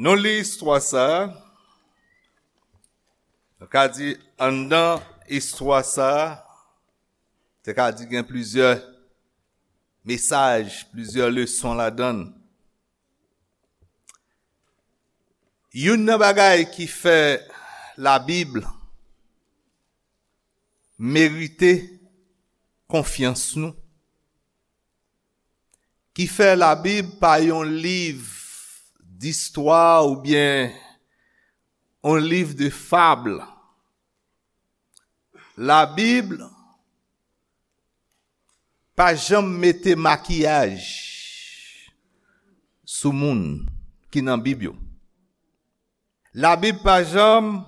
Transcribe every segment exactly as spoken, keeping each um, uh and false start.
Nou li istwa sa a. Nou ka di, anndan istwa sa a, te ka di gen plizyè mesaj, plizyè leson ladan l. Youn nan bagay ki fè Labib merite konfyans nou, ki fè Labib pa yon liv distwa oubyen yon liv de fab. Labib pa janm mete makiyaj sou moun ki nan Bib yo. Labib pa janm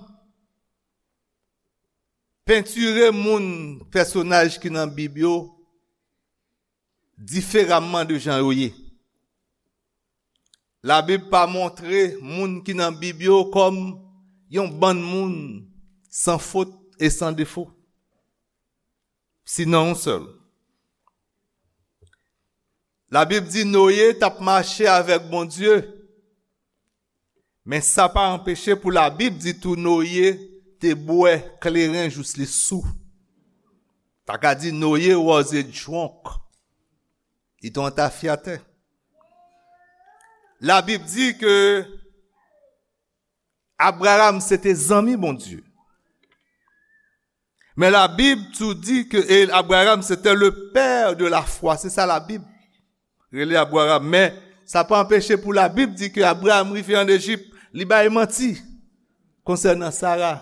pentire moun, pèsonaj ki nan Bib yo, diferaman de jan yo ye. Labib pa montre moun ki nan Bib yo kòm yon bann moun san fot e san defo. Sinon yon sèl. Labib di Noye t ap mache avèk Bondye, men sa pa anpeche pou Labib di tou Noye te bwè kleren jous li sou. Ta ka di Noye was a drunk. Li te yon tafyatè. Labib di ke Abraram se te zanmi Bondye. Men Labib tou di ke e Abraram se te le père de la foi. Se sa Labib rele Abraram. Men sa pa anpeche pou Labib di ke Abraram rive ann Ejip, li bay manti konsènan Sara.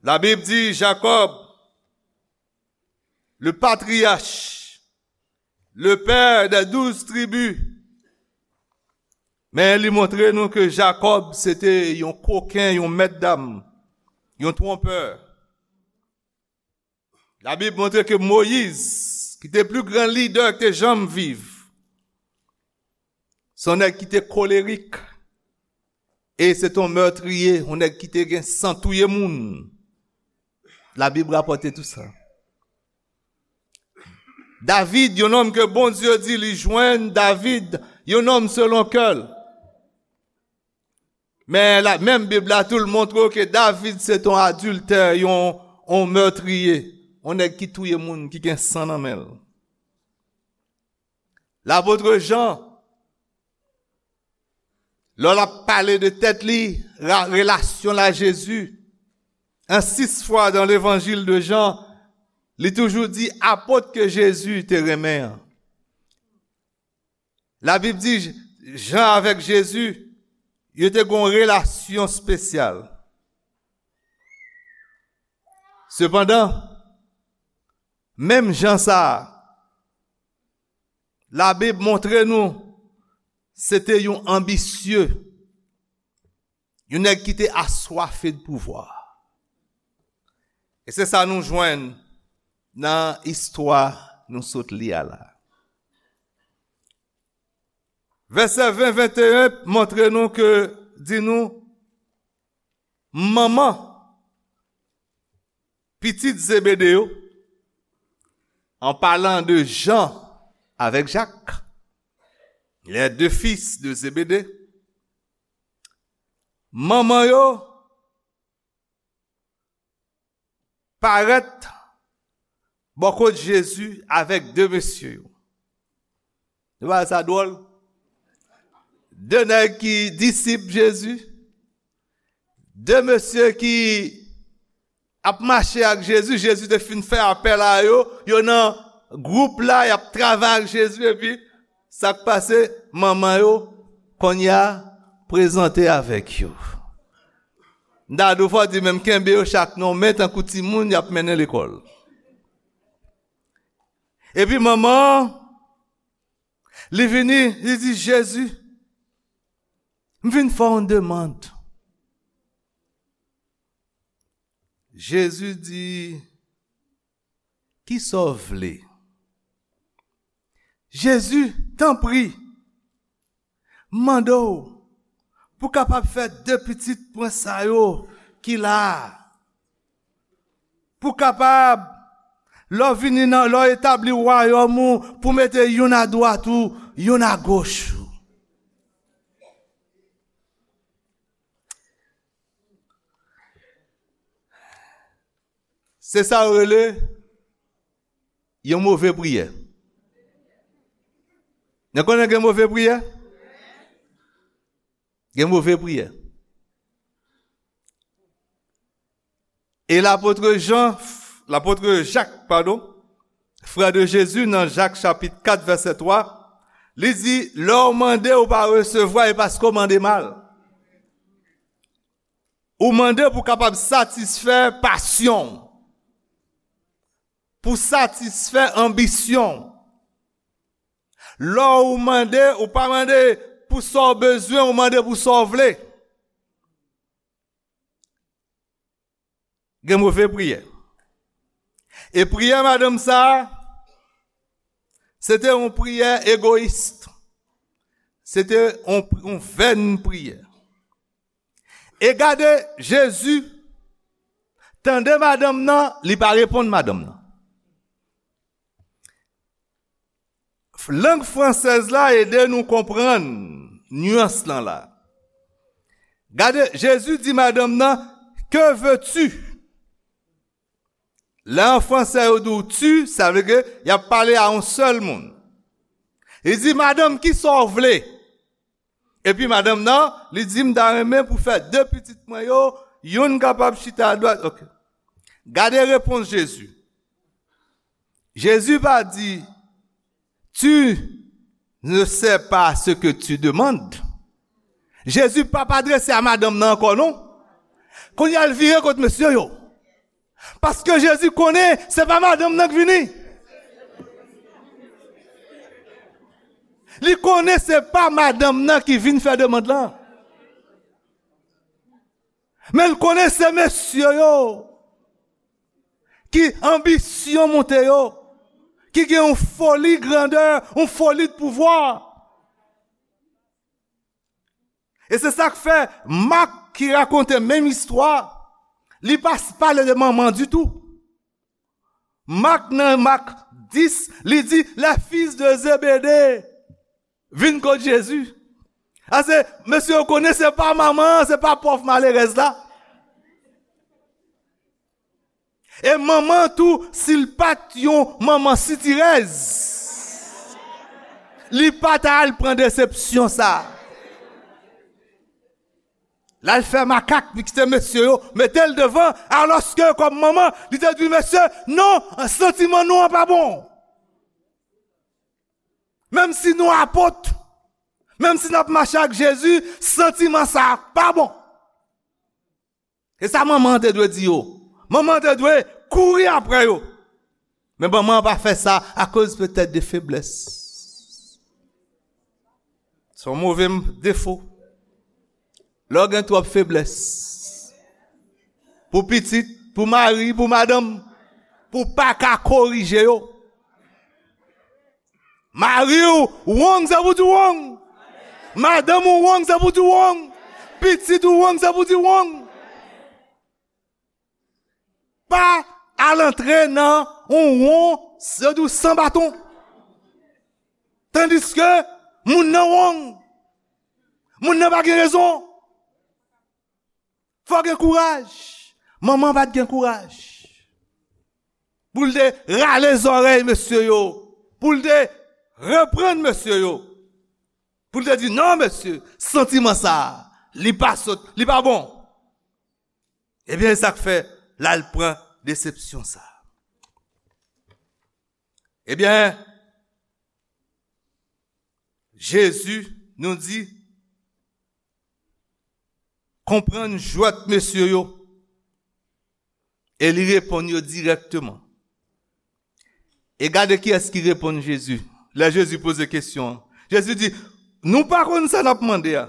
Labib di Jakòb, le patriarche, le père des douze tribus. Men li montre nou ke Jakòb se te yon koken, yon mèt dam, yon twonpè. Labib montre ke Moyiz, ki te pli gran lidè ki te janm viv, se yon nèg ki te kolerik, e se te yon mètriye, yon nèg ki te gen san touye moun. Labib rapòte tou sa. David, yon nonm ke Bondye di li jwenn, David, yon nonm selon kè l. Men la, menm Bib la tou l montre w ke David se t on adiltè, yon, on mètriye, on nèg ki touye moun, ki gen san nan men l. Lapot Jan, lè l ap pale de tèt li, ra-, relasyon l a Jezi, an sis fwa dan Levanjil de Jan, li toujou di apot ke Jezi te renmen an. Labib di, Jan avèk Jezi, yo te gen yon relasyon espesyal. Sepandan, menm Jan sa a, Labib montre nou se te yon anbisye, yon nèg ki te aswafe de pouvwa. E se sa nou jwenn nan istwa nou sot li a la. Vèsè ven, venteyen montre nou ke, di nou, manman pitit Zebede yo, en parlant de Jean avec Jacques, les deux fils de Zébédée, manman yo parèt bò kot Jezi avèk de mesye yo. Nou pa wè sa dwòl? De nèg ki disip Jezi, de mesye ki ap mache ak Jezi, Jezi te fin fè apèl a yo, yo nan gwoup la, y ap travay ak Jezi, epi sa k pase, manman yo, kounye a, prezante avèk yo. M ta di w fò di menm kenbe yo chak nan men tankou timoun y ap mennen lekòl. Epi manman an, li vini, li di, Jezi, m vin fè w yon demann. Jezi di, kisa w vle? Jezi, tanpri, m mande w pou w kapab fè de pitit mwen sa yo ki la a, pou w kapab, lè w vini nan, lè w etabli wayòm ou, pou w mete youn adwat ou, youn agoch ou. Se sa yo rele yon move priyè. Nou konnen gen move priyè? Gen move priyè. E lapot Jan, lapot Jak, padon, frè de Jezi, nan Jak chapit kat vèsè twa, li di, lè w mande, ou pa resevwa, e paske w mande mal. Ou mande pou w kapab satisfè pasyon w, pou satisfè anbisyon w. Lè w mande, ou pa mande pou sa w bezwen, ou mande pou sa w vle. Gen move priyè. E priyè madanm sa a, se te yon priyè egoyis. Se te yon, yon vèn priyè. E gade, Jezi tande madanm nan, li pa reponn madanm nan. Lang fransèz la ede nou konprann nyans lan la. Gade, Jezi di madanm nan, que veux-tu? Lè an fransè yo di w tu, sa vle ke y ap pale a yon sèl moun. Li di, madanm, kisa w vle? Epi madanm nan, li di, m ta renmen pou fè de pitit mwen yo, youn kapab chita adwat. Ok. Gade repons Jezi. Jezi pa di, tu ne sais pas ce que tu demandes. Jezi pa pa adrese a madanm nan ankò, non. Kounye a l vire kot mesye yo. Paske Jezi konnen se pa madanm nan k vini. Li konnen se pa madanm nan ki vin fè demann lan. Men l konnen se mesye yo ki anbisyon monte yo, ki gen yon foli grandè, yon foli de pouvwa. E se sa k fè Mak ki rakonte menm istwa, li pa s-, pale de manman ditou. Mak nan Mak dis, li di, les fils de Zébédée vin kot Jezi. Ase, mesye yo konnen se pa manman an, se pa pòv malerèz la. E manman tou, si l pa t yon manman sitirèz, li pa ta al pran desepsyon sa. L al fè makak, li kite mesye yo, mete l devan, alòske kòm manman, li te di mesye, non, santiman nou an pa bon. Menm si nou apot, menm si n ap mache ak Jezi, santiman sa pa bon. E sa manman an te dwe di yo. Manman an te dwe kouri apre yo. Men manman an pa fè sa akoz petèt de feblès. Se yon move m-, defo. Lè w gen twòp feblès. Pou pitit, pou mari, pou madanm, pou w pa ka korije yo. Mari w wrong, se pou di wrong. Madanm ou wrong, se pou di wrong. Pitit ou wrong, se pou di wrong. Pa al antre nan yon won, se di w san baton. Tandiske moun nan wrong. Moun nan pa gen rezon. Fò gen kouraj. Manman pa t gen kouraj pou l te rale zòrèy mesye yo, pou l te reprann mesye yo, pou l te di, non, mesye, santiman sa a, li pa sot, li pa bon. Ebyen, e sa k fè l al pran desepsyon sa a. Ebyen, Jezi nou di, konprann jwèt mesye yo, e li reponn yo dirèkteman. E gade kiyès ki reponn Jezi, lè Jezi poze kesyon an. Jezi di, nou pa konn sa n ap mande a.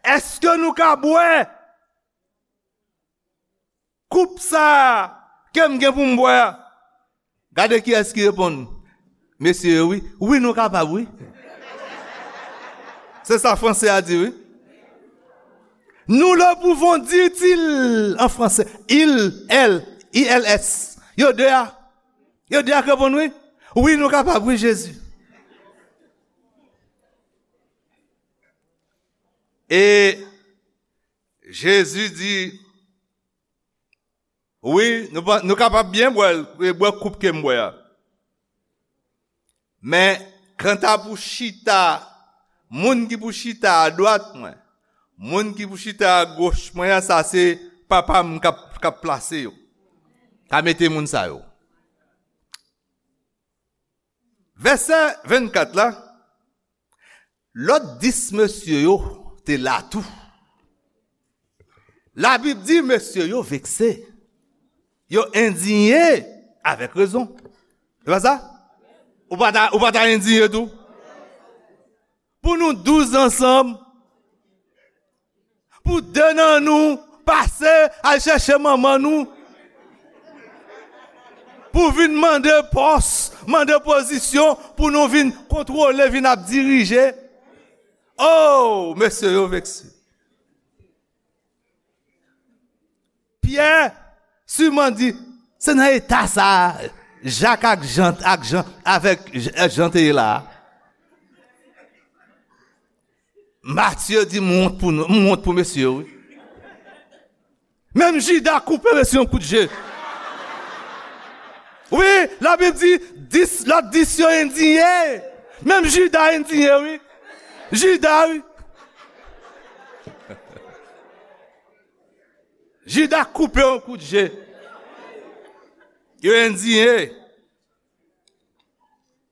Èske nou ka bwè koup sa a ke m gen pou m bwè a? Gade kiyès ki reponn. Mesye yo, wi. Wi, nou kapab, wi. Se sa franse a di, wi. Nous le pouvons, dit-il en français. Il, elle, I L S. Yo de a. Yo de a k reponn, wi. Wi, nou kapab, wi, Jezi. E Jezi di, Wi, nou, pa- nou kapab byen bwè l, e bwè koup ke m bwè a. Men, kanta pou chita, moun ki pou chita adwat mwen, moun ki pou chita agoch mwen an, sa se papa m k ap, k ap plase yo. Ka mete moun sa yo. Vèsè vennkat la, lòt dis mesye yo te la tou. Labib di mesye yo vekse. Yo endiye avèk rezon. Se pa sa? Ou pa ta, ou pa ta endiye tou? Pou nou douz ansanm, pou de nan nou pase al chèche manman nou, pou vin mande pòs, mande pozisyon, pou nou vin kontwole, vin ap dirije. Oh, mesye yo vekse. Pyè siman di, se nan eta sa a, Jak ak Jan, ak Jan, avèk J- Jan te ye la a. Matye di, m wont pou nou, m wont pou mesye yo, wi. Menm Jida koupe mesye yon kout je. Wi, Labib di, dis, lòt dis yo endiye. Menm Jida endiye, wi. Jida, wi. Jida koupe yon kout je. Yo endiye.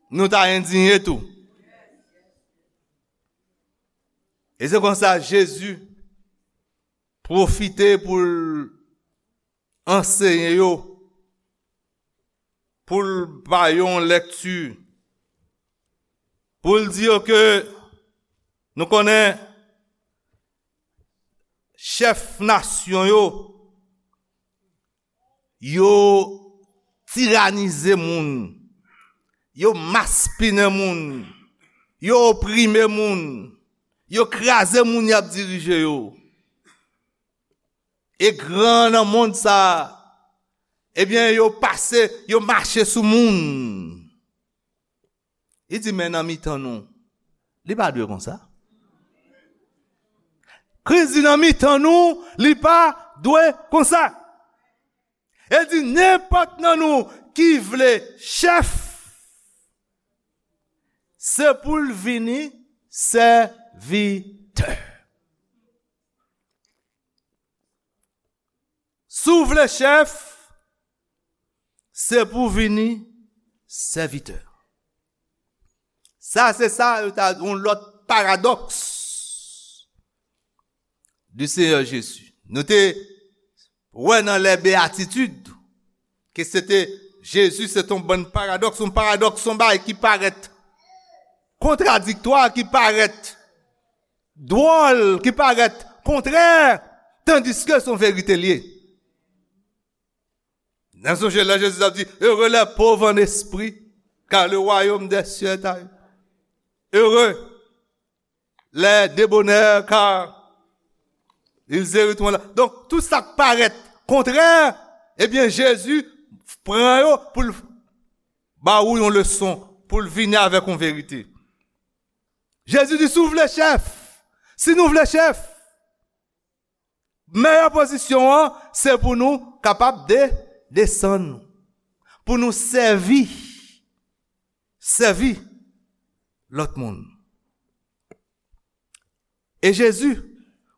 Nou ta endiye tou. E se konsa Jezi pwofite pou l anseye yo, pou l ba yo yon lèkti, pou l di yo ke nou konnen chèf nasyon yo, yo tiranize moun, yo maspinen moun, yo oprime moun, yo kraze moun y ap dirije yo. E gran nan mond sa a, ebyen, yo pase, yo mache sou moun. Li di, men nan mitan nou, li pa dwe konsa. Kris di nan mitan nou, li pa dwe konsa. E di, nenpòt nan nou ki vle chèf, se pou l vini sèvitè. Si w vle chèf, se pou vini sèvitè. Sa, se sa, yo ta yon lòt paradòks du Seigneur Jésus. Nou te wè nan les Béatitudes ke se te, Jezi se te yon bann paradòks, yon paradòks, yon bagay ki parèt kontradiktwa, ki parèt dwòl, ki parèt kontrè, tandiske se yon verite l ye. N ap sonje lè Jezi t ap di, heureux les pauvres en esprit, car le royaume des cieux est à eux. Heureux les débonnaires, car ils hériteront la. Donk, tout sa k parèt kontrè, ebyen, Jezi pran yo pou l ba ou yon leson, pou l vini avèk yon verite. Jezi di, si w vle chèf, si nou vle chèf, meyè pozisyon an, se pou nou kapab de, desann, pou nou sèvi, sèvi lòt moun. E Jezi,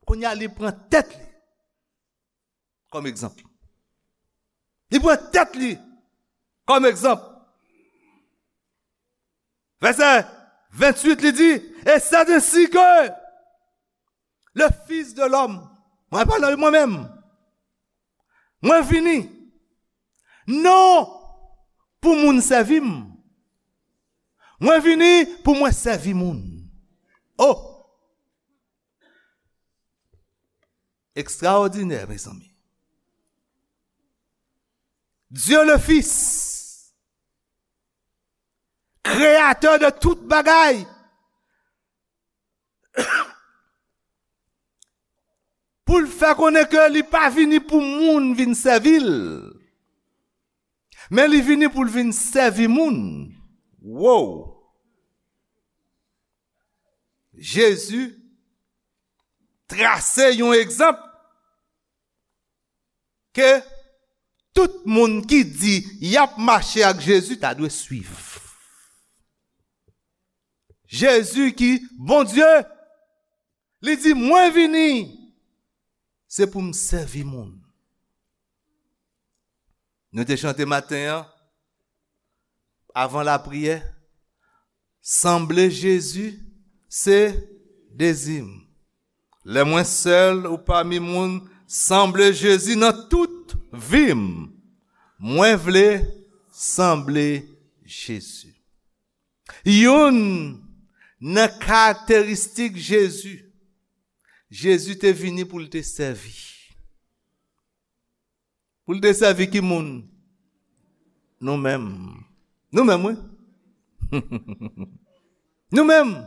kounye a, li pran tèt li kòm egzanp. Li pran tèt li kòm egzanp. Vèsè venntuit, li di, et c'est ainsi que le Fils de l'homme, mwen pale de mwen menm, mwen vini, non pou moun sèvi m, mwen vini pou mwen sèvi moun. Oh! Ekstraòdinè, mezanmi. Dieu le Fils, kreyatè de tout bagay, pou l fè konnen ke li pa vini pou moun vin sèvi l, men li vini pou l vin sèvi moun. Wow! Jezi trase yon egzanp ke Tout moun ki di y ap mache ak Jezi ta dwe swiv. Jezi ki Bondye, li di, "Mwen vini, se pou m sèvi moun." Nou te chante maten an, avan lapriyè, "Sanble Jezi, se dezi m. Lè mwen sèl ou pami moun, sanble Jezi nan tout vi m. Mwen vle sanble Jezi." Youn nan karakteristik Jezi, Jezi te vini pou l te sèvi. Pou l te sèvi ki moun? Nou menm. Nou menm, wi. Nou menm.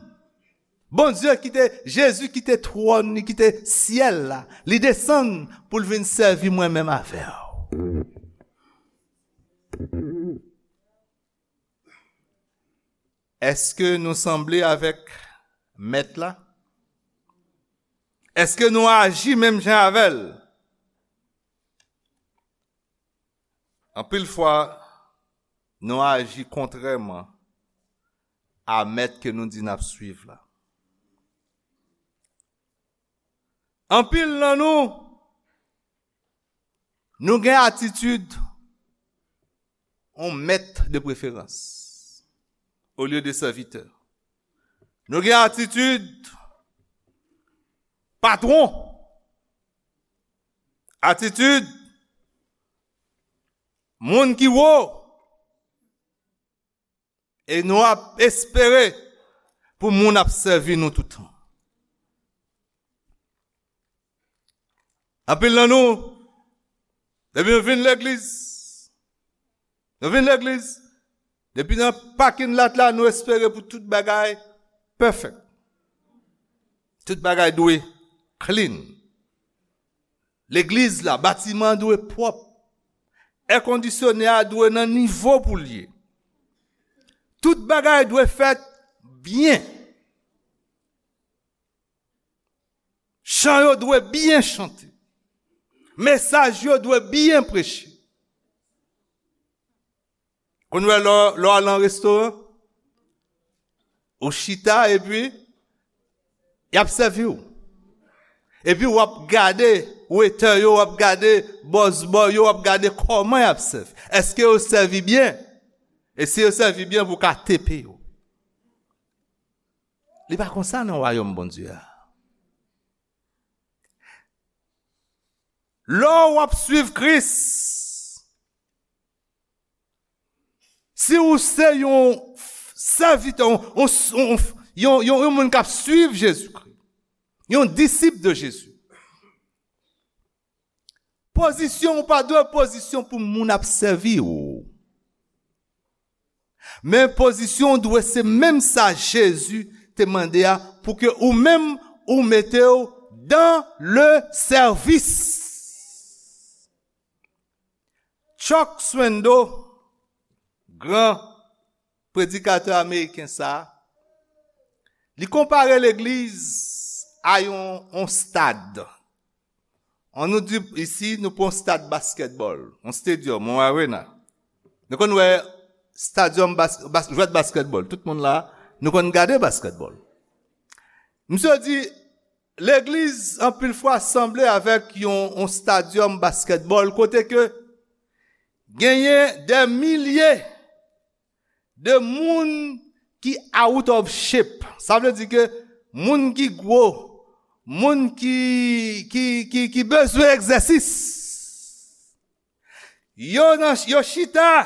Bondye ki te, Jezi ki te twòn li, ki te syèl la, li desann pou l vin sèvi mwen menm avè w. Èske nou sanble avèk Mèt la? Èske nou aji menm jan avè l? Anpil fwa, nou aji kontrèman a Mèt ke nou di n ap swiv la. Anpil nan nou, nou gen atitid yon mèt de preferans olye de sèvitè. Nou gen atitid patwon, atitid moun ki wo, e nou ap espere pou moun ap sèvi nou toutan. Anpil nan nou, depi nou vin legliz, nou vin legliz, depi nan pakin lat la, nou espere pou tout bagay pèfèk. Tout bagay dwe clean. Legliz la, batiman an dwe pwòp. Èkondisyone a dwe nan nivo pou l ye. Tout bagay dwe fèt byen. Chan yo dwe byen chante. Mesaj yo dwe byen preche. Konn wè lè, lè w al nan restoran, ou chita epi y ap sèvi w. Epi w ap gade wetè yo, w ap gade bòs bò yo, w ap gade kòman y ap sèvi. Èske yo sèvi byen? E si yo sèvi byen, pou w ka tepe yo. Li pa konsa nan wayòm Bondye a. Lè w ap swiv Kris, si ou se yon sèvitè, yon, yon, yon, yon, yon, yon moun k ap swiv Jezikri, yon disip de Jezi, pozisyon ou pa dwe pozisyon pou moun ap sèvi w. Men pozisyon w dwe se menm sa Jezi te mande a, pou ke ou menm ou mete w dans le service. Chuck Swindoll, gran predikatè ameriken sa a, li konpare legliz a yon, yon stad. An nou di isi, nou pran yon stad baskètbòl, yon stadium, yon arena. Nou konn wè stadium bas, bas, jwèt baskètbòl. Tout moun la, nou konn gade baskètbòl. Misye di, legliz anpil fwa sanble avèk yon, yon stadium baskètbòl kote ke genyen dè milye de moun ki out of shape. Sa vle di ke moun ki gwo, moun ki, ki, ki, ki bezwen egzèsis. Yo nan, yo chita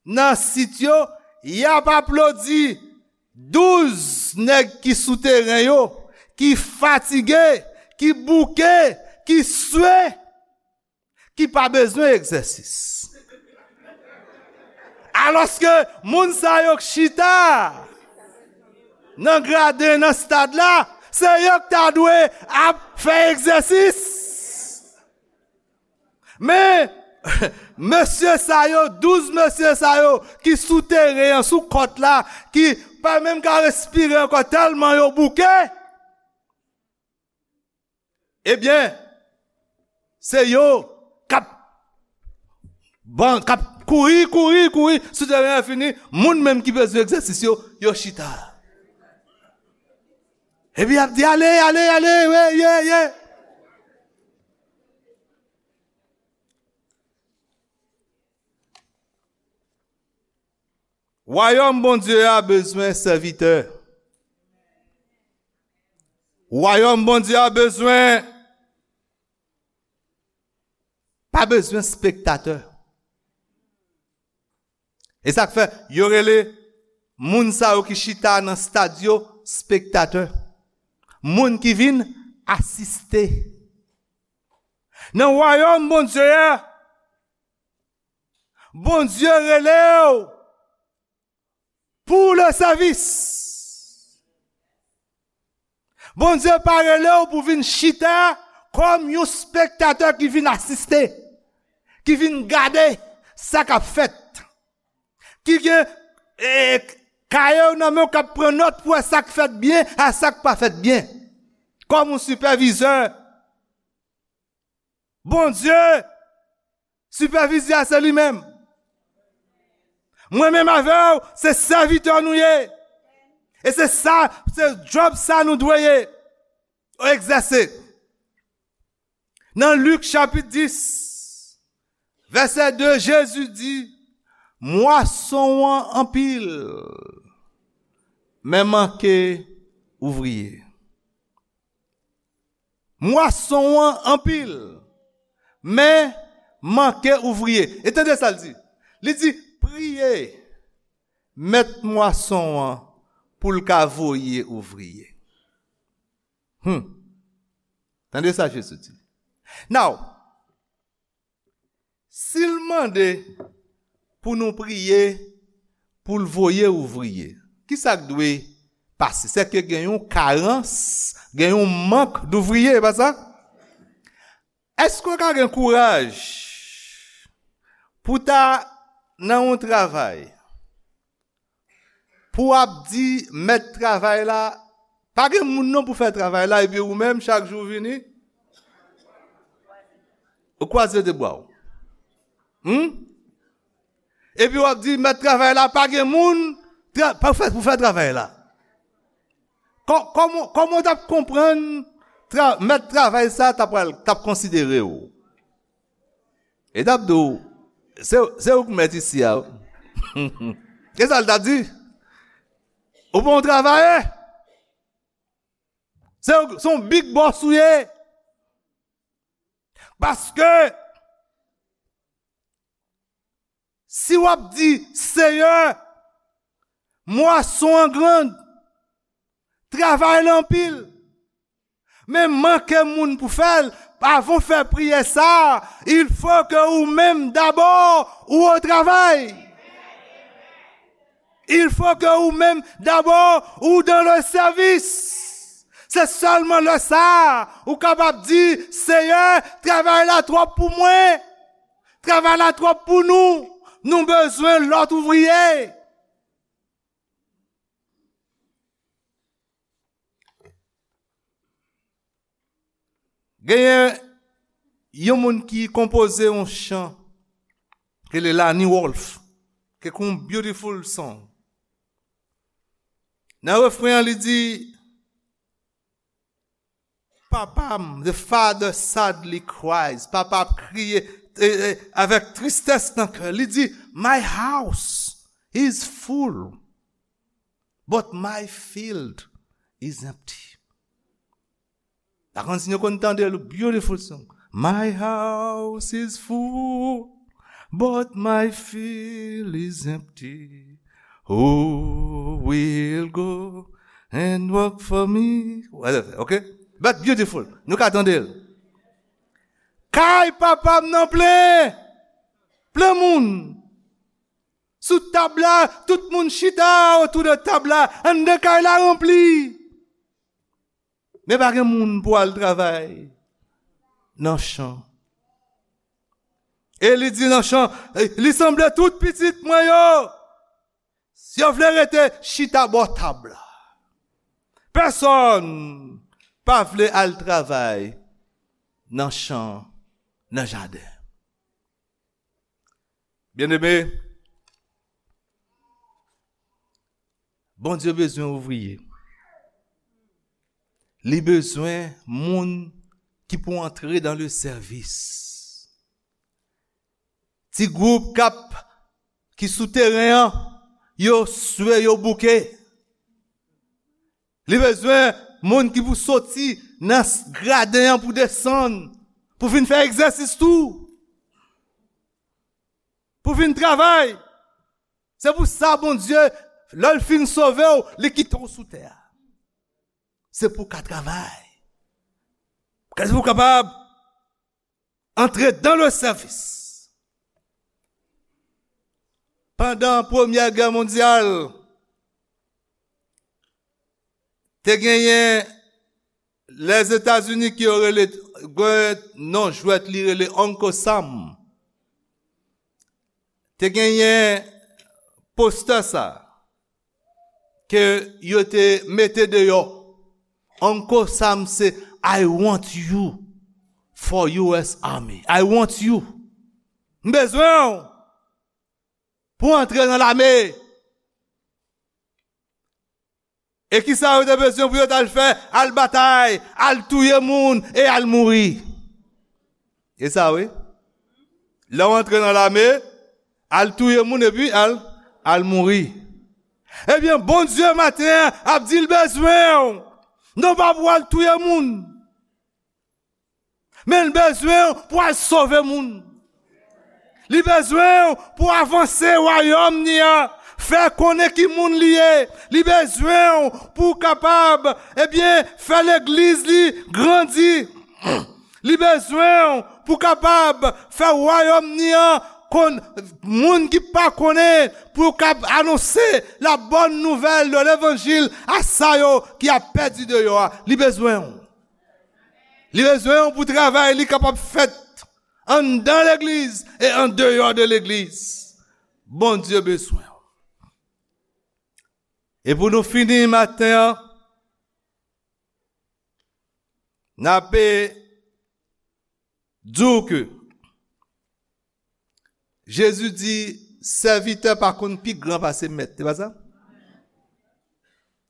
nan sit yo, y ap aplodi douz nèg ki sou teren yo, ki fatige, ki bouke, ki swe, ki pa bezwen egzèsis. Alòske moun sa yo k chita nan graden, nan stad la, se yo k ta dwe ap fè egzèsis. Men, mesye sa yo, douz mesye sa yo ki sou teren an, sou kòt la, ki pa menm ka respire ankò tèlman yo bouke, ebyen, se yo k ap Ban k ap kouri, kouri, kouri sou teren an fini, moun menm ki bezwen egzèsis yo, yo chita. Epi y ap di, ale, ale, ale, ye, ye, ye. Wayòm Bondye a bezwen sèvitè. Wayòm Bondye a bezwen, pa bezwen spektatè. E sa k fè yo rele moun sa yo ki chita nan stad yo spektatè. Moun ki vin asiste. Nan wayòm Bondye a, Bondye rele w pou le sèvis. Bondye pa rele w pou vin chita kòm yon spektatè ki vin asiste, ki vin gade sa k ap fèt, ki gen, e, kaye w nan men w k ap pran nòt pou wè sa k fèt byen ak sa k pa fèt byen, kòm yon sipèvizè. Bondye, sipèvizè a se li menm. Mwen menm avè w, se sèvitè nou ye. E se sa, se djòb sa nou dwe ye, egzèse. Nan Lik chapit dis, vèsè de, Jezi di, mwason an anpil, men manke ouvriye. Mwason an anpil, men manke ouvriye. E tande sa l di. Li di, priye mèt mwason an pou l ka voye ouvriye. Hmm. Tande sa Jezi di. Now, si l mande pou nou priye pou l voye ouvriye, ki sa k dwe pase? Sèke gen yon karans, gen yon mank douvriye, e pa sa? Èske w ka gen kouraj pou w ta nan yon travay, pou w ap di mèt travay la, pa gen moun non pou fè travay la, epi ou menm, chak jou w vini, ou kwaze de bra w. Hmm? Epi w ap di, mèt travay la, pa gen moun tra- pa fè, pou fè travay la. Kò- kòman, kòman w t ap konprann tra- mèt travay sa t ap pral- t ap konsidere w? E t ap di w, se, se ou k mèt isi a. E sa l t ap di? Ou pa yon travayè. Se, se yon big boss ou ye. Paske, si w ap di, Seyè, mwason an grand, travay la anpil, men manke moun pou fè l, avan w fè priyè sa, il faut que ou menm dabò ou o travay. Il faut que ou menm dabò ou dans le service. Se sèlman lè sa a ou kapab di, Seyè, travay la twòp pou mwen. Travay la twòp pou nou. Nou bezwen lòt ouvriye. Genyen yon moun ki konpoze yon chan, ki rele Lani Wolf, ki gen yon beautiful song. Nan refren an, li di, papa m, the father sadly cries, papa ap kriye, eh, eh, avèk tristès nan kè. Li di, my house is full, but my field is empty. Pa konn si nou konn tande l, beautiful song. My house is full, but my field is empty. Who will go and work for me? Whatever, ok? But beautiful. Nou ka tande l. Kay papa m nan plen. Plen moun. Sou tab la, tout moun chita otou de tab la. Anndan kay la ranpli. Men pa gen moun pou al travay nan chan. E li di nan chan, li sanble tout pitit mwen yo, si yo vle rete chita bò tab la. Pèsonn pa vle al travay nan chan, nan jaden. Byeneme, Bondye bezwen ouvriye. Li bezwen moun ki pou antre dans le service. Ti gwoup k ap, ki sou teren an, yo swe, yo bouke. Li bezwen moun ki pou soti nan s-, graden an pou desann, pou vin fè egzèsis tou, pou vin travay. Se pou sa Bondye, lè l fin sove w, li kite w sou tè a. Se pou w ka travay. Kè pou w kapab antre dans le service. Pandan Premyè Gè Mondyal, te genyen Lèzetazini ki yo rele, gen non jwèt li rele Uncle Sam. Te genyen postè sa ke yo te mete deyò. Uncle Sam se, "I want you for U S Army. I want you." M bezwen w pou antre nan lame. E kisa yo te bezwen pou yo t al fè? Al batay, al touye moun e al mouri. E sa wi. Lè w antre nan lame, al touye moun epi al, al mouri. Ebyen, Bondye maten an ap di l bezwen w. Non pa pou al touye moun. Men l bezwen w pou al sove moun. Li bezwen w pou avanse wayòm ni an, fè konnen ki moun li ye. Li bezwen w pou w kapab, ebyen, fè legliz li grandi. Li bezwen w pou w kapab fè wayòm ni an konn moun ki pa konnen, pou w kab anonse la bonne nouvelle de levanjil a sa yo ki ap pèdi deyò a. Li bezwen w. Li bezwen w pou travay li kapab fèt anndan legliz e andeyò de legliz. Bondye bezwen w. E pou nou fini maten an, n ape di w ke Jezi di, sèvitè pa konn pi gran pase mèt. Se pa sa?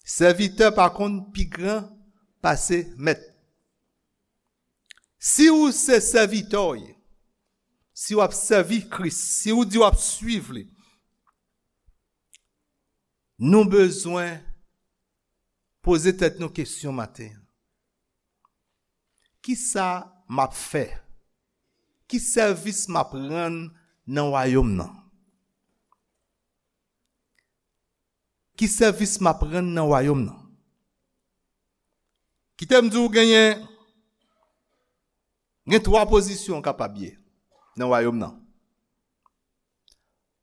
Sèvitè pa konn pi gran pase mèt. Si ou se sèvitè w ye, si w ap sèvi Kris, si ou di w ap swiv li, nou bezwen poze tèt nou kesyon maten an. Kisa m ap fè? Ki sèvis m ap rann nan wayòm nan? Ki sèvis m ap rann nan wayòm nan? Kite m di w genyen, gen twa pozisyon w kapab ye nan wayòm nan.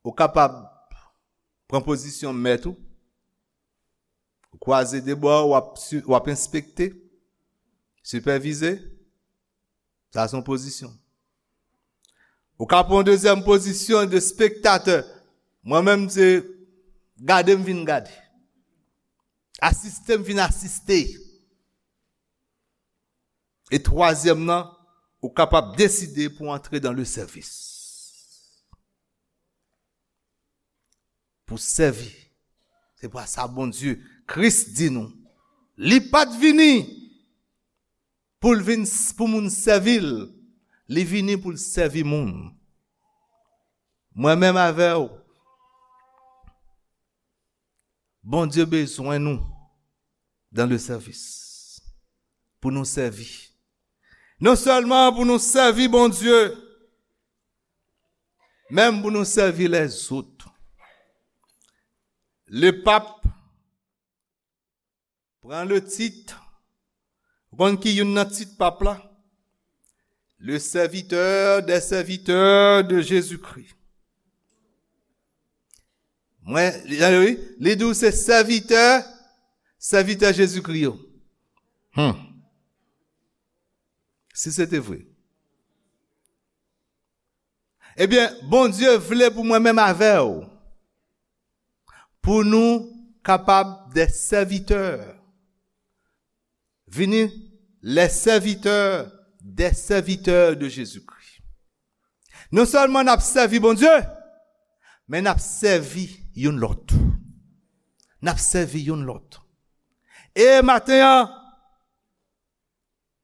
Ou kapab pran pozisyon mèt ou, ou kwaze de bra, w ap si-, w ap enspekte, sipèvize. Sa se yon pozisyon. Ou ka pran yon dezyèm pozisyon de spektatè. Mwen menm se gade m vin gade. Asiste m vin asiste. E twazyèm nan, ou kapab deside pou antre dans le service. Pou sèvi. Se pa sa Bondye, Kris di nou. Li pa t vini pou l vin s-, pou moun sèvi l. Li vini pou l sèvi moun. Mwen menm avè w, Bondye bezwen nou dans le service. Pou nou sèvi. Non sèlman pou nou sèvi Bondye, menm pou nou sèvi lèzòt. Le pap pran le tit. Ou konn ki youn nan tit pap la? Le serviteur des serviteurs de Jésus-Christ. Mwen, li, li, li di w se sèvitè, sèvitè Jezikri yo. Hmm. Si se te vre. Ebyen, Bondye vle pou mwen menm avè w, pou nou kapab de sèvitè, vini les serviteurs des serviteurs de Jésus-Christ. Non sèlman n ap sèvi Bondye, Men n ap sèvi youn lòt. N ap sèvi youn lòt. E maten an,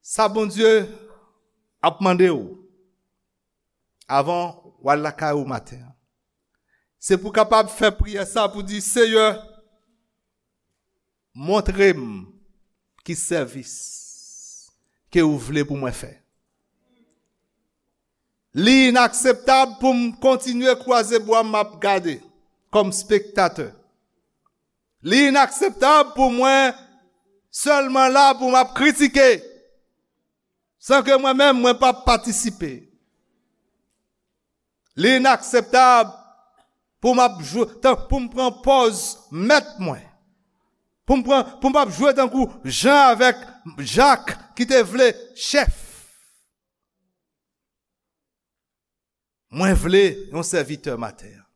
sa Bondye ap mande w, avan w al lakay ou maten an, se pou w kapab fè priyè sa pou di, Seyè, montre m ki sèvis ke ou vle pou mwen fè. Li inakseptab pou m kontinye kwaze bwa m ap gade kòm spektatè. Li inakseptab pou mwen sèlman la pou m ap kritike, san ke mwen menm mwen p ap patisipe. Li inakseptab pou m ap jwe, tan, pou m pran pòz mèt mwen. Pou m pran, pou m ap jwe tankou Jan avèk Jak ki te vle chèf. Mwen vle yon sèvitè maten an.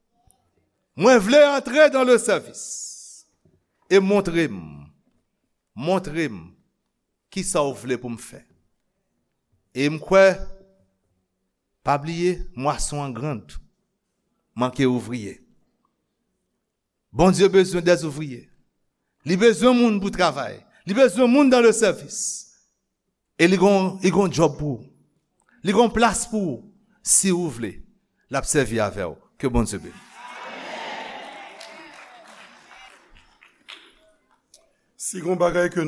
Mwen vle antre dans le service. E montre m, montre m ki sa w vle pou m fè. E m kwè, pa bliye, mwason an grand, manke ouvriye. Bondye bezwen des ouvriers. Li bezwen moun pou travay. Li bezwen moun dans le service. E li gon, li gon djòb pou ou. Li gon plas pou ou. Si ou vle, l ap sèvi avè w. Ke Bondye beni. Si gon bagay ke